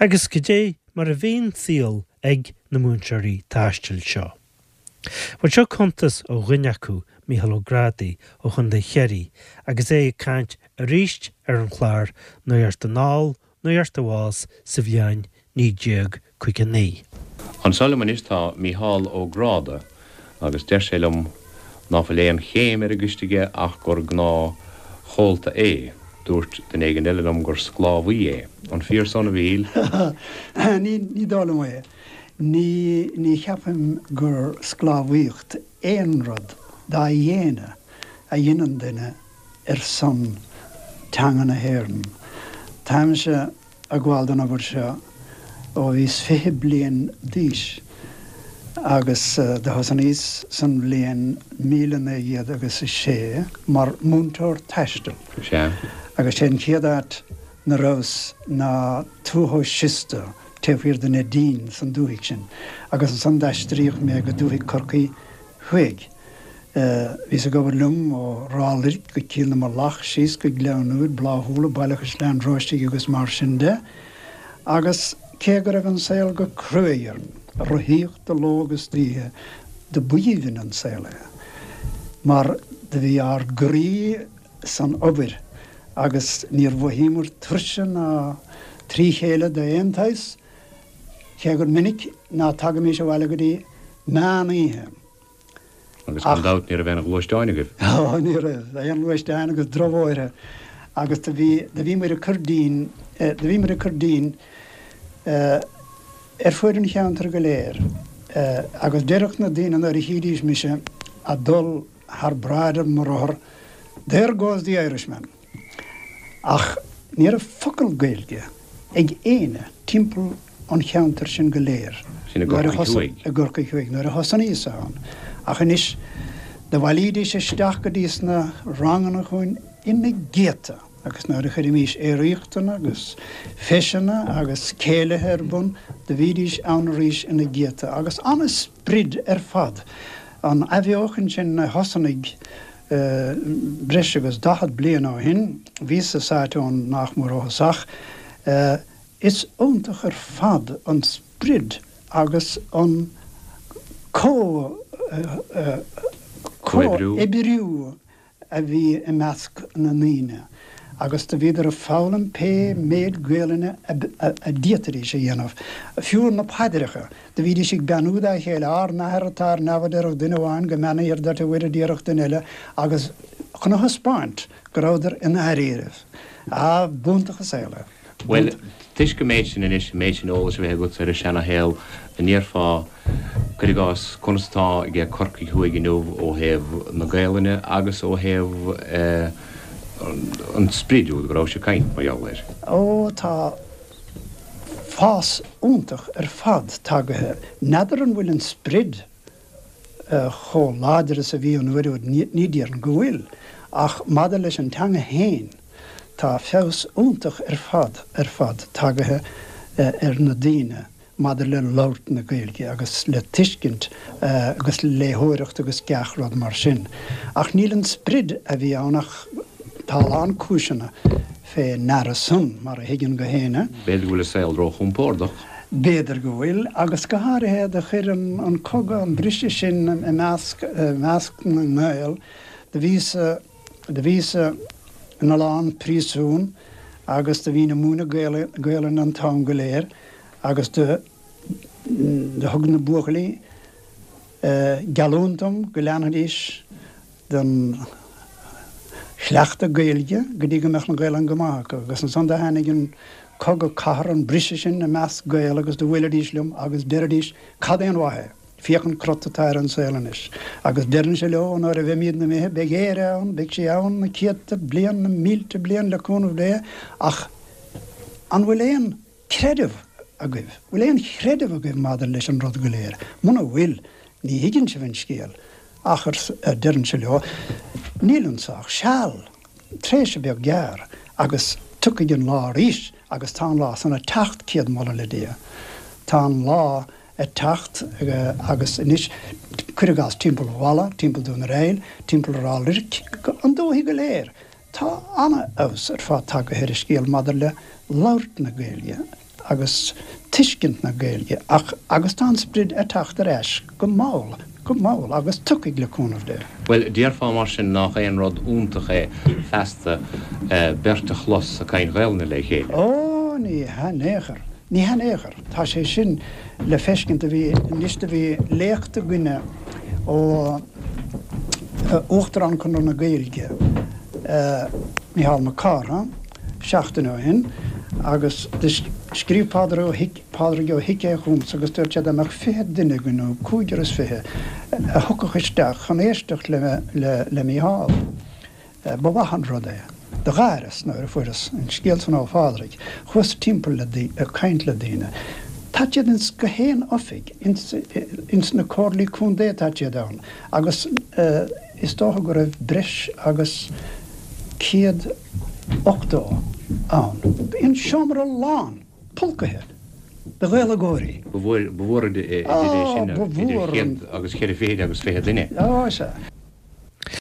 Agus goidé mar a bhí an saol ag na múinteoirí taistil seo? Bhuel, seo cuntas ó dhuine acu, Mícheál Ó Grádaigh ó Chontae Chiarraí, agus é ag caint arís ar an chlár Nuacht Anall, Nuacht Abhus sa bhliain 1959. Anso liom anois tá Mícheál Ó Gráda agus deir sé liom ná fuil aon chéim ar an gcoiste aige ach gur gnáth chomhalta é. Dúirt duine éigin eile liom gur sclábhaí é. An fíor san, a Mhíchíl? Ní dóigh liom é. Ní, ní cheapaim gur sclábhaíocht aon rud dá dhéine a dheineann duine ar son teanga na hÉireann. Táimse ag gabháil don obair seo ó bhíos 20 bliain d'aois agus do thosnaíos san bhliain 1900 agus a sé mar mhúinteoir taistil. Sea. Agus sé an chéad áit 'na rabhas ná Tuath Siosta taobh thiar de Neidín san dúthaigh sin agus ansan d'aistríodh mé go dúthaigh Corcaí Thuaidh. Bhíos ag obair liom ó Ráth Luirc go Cill na Mullach, síos go Gleann Úir, Bláthúla, Baile Chaisleáin Róistigh agus mar sin de. Agus cé go raibh an saol go cruaidh orainn, rothaíocht de ló agus d'oíche, do b'aoibhinn an saol é mar do bhí ár gcroí san obair agus níor mhothaíomar tuirse ná trí chéile d'aon tsaghas, cé gur minic ná tagaimís abhaile go dtí meán oíche. Agus gan dabht ní raibh aon ghluaisteáin agaibh. Ó, ní raibh, aon ghluaisteáin agus drochbhóithre agus do bhí, do bhí muid ag cur dínn, do bhí muid ag cur dínn ar fuaid an cheantair go léir agus deireadh na daoine nuair a chídís mise a' dul thar bráid ar mo rothar, There goes the Irishman! Ach ní raibh focal Gaeilge ag éinne timpeall an cheantair sin go léir. Sin i gCorcaigh Thuaidh. I gCorcaigh Thuaidh, nuair a thosnaíos ann. Ach anois, do bhailídís isteach go dtí sna ranganna chugainn ina gcéadta agus nuair a chuirimís aeraíochtanna agus feiseanna agus céilithe ar bun, do bhídís ann arís ina gcéadta agus an-sprid ar fad. An athbheochan sin a thosnaigh breis agus 40 bliain ó shin, bhíos-sa sáite ann nach mór ó thosach, Is iontach ar fad an sprid agus an comhoibriú a bhí i measc na ndaoine agus do bhíodar ag foghlaim pé méid Gaelainne a d'fhéadfaidís a dhéanamh. Fiú na paidreacha, do bhídís ag beannú dá chéile, Ár nAthair atá ar neamh a déarfadh duine amháin, Go mbeannaíthear duit a Mhuire a déarfadh duine eile agus chun a thaispeáint go rabhadar i ndáiríribh. Ah, b'iontach an saol é. Bhuel, toisc an méid sin anois, an méid sin eolais a bheith agat ar an seana-shaol, an ndéarfá, cuir i gcás, conas atá aige Corcaigh Thuaidh inniu ó thaobh na Gaelainne agus ó thaobh an sprid úd go rabhais ag caint mar gheall air? Ó, tá fás iontach ar fad tagaithe. N'fheadar an bhfuil an sprid chomh láidir is a bhí an uair úd, ní déarfainn go bhfuil, ach maidir leis an teanga fhéin, tá feabhas iontach ar fad, ar fad tagaithe ar na daoine maidir le labhairt na Gaeilge agus le tuiscint agus le léitheoireacht agus gach rud mar sin. Ach níl an sprid a bhí ann ach tá a lán cúiseanna fé ndeara san, mar a thuigeann gach éinne. B'fhéidir go bhfuil an saol róchompordach. B'fhéidir go bhfuil, agus go háirithe do chuir an cogadh an briseadh sin i measc, i measc na nGael. Do bhíos-sa, do bhíos-sa ina lán príosún agus do bhínn ag múineadh Gaelainne an t-am go léir agus do, do thug na buachaillí geallúint dom go leanfaidís den chleachtadh Gaeilge go dtí go mbeadh an Ghaelainn go maith acu. Agus ansan do tháinig an cogadh cathartha, an briseadh sin i measc Gael agus do bhuailidís liom agus deiridís, Cad é an mhaith é? Féach an crot atá ar an saol anois. Agus deirinnse leo, nuair a bheimídne imithe, beidh Éire ann, beidh sí ann na céadta bliain, na mílte bliain le cúnamh Dé, ach an bhfuil aon creideamh agaibh? Bhfuil aon chreideamh agaibh maidir leis an rud go léir? Muna bhfuil, ní thuigeann sibh an scéal. Ach, a deirinnse leo, níl anso ach seal, tréimhse beag gearr, agus tiocfaidh an lá arís, agus tá an lá san ag teacht, céad moladh le Dia. Tá an lá ag teacht, agus anois, cuir i gcás, timpeall Mhala, timpeall Dún ar Aill, timpeall Ráth Luirc, an dúthaigh go léir, Tá an-fheabhas ar fad tagaithe ar an scéal maidir le labhairt na Gaeilge. agus tuiscint na Gaeilge ach agus tá an sprid ag teacht ar ais go mall, go mall agus tiocfaidh le cúnamh Dé. Bhuel, déarfá mar sin nach aon rud iontach é feasta beirt a chlos ag caint Ghaelainne le chéile? Ó, ní hea in aon chor. Ní hea in aon chor. Tá sé sin le feiscint. Do bhí, anois do bhí léacht againne ó Uachtarán Chonradh na Gaeilge, Mícheál Mac Cárthaigh, seachtain ó shin agus do scríobh Pádraig Ó hIc, Pádraig Ó hIceadha chugamsa agus dúirt sé dá mbeadh 20 duine againn nó cúigear is fiche a thiocfadh isteach chun éisteacht le, le, le Mícheál. Ba mhaith an rud é. Do gháireas nuair a fuaireas an scéal san ó Phádraig. Chuas timpeall le, ag caint le daoine. Tá siad ins gach aon oifig, ins, ins na comhairlí contae tá siad ann agus is dócha go raibh breis agus 180 ann. Bhí an seomra lán, pulcaithe de Ghaeilgeoirí. Ba mhór idir é sin, idir chéad agus cheithre fichid agus fiche duine. Á, sea.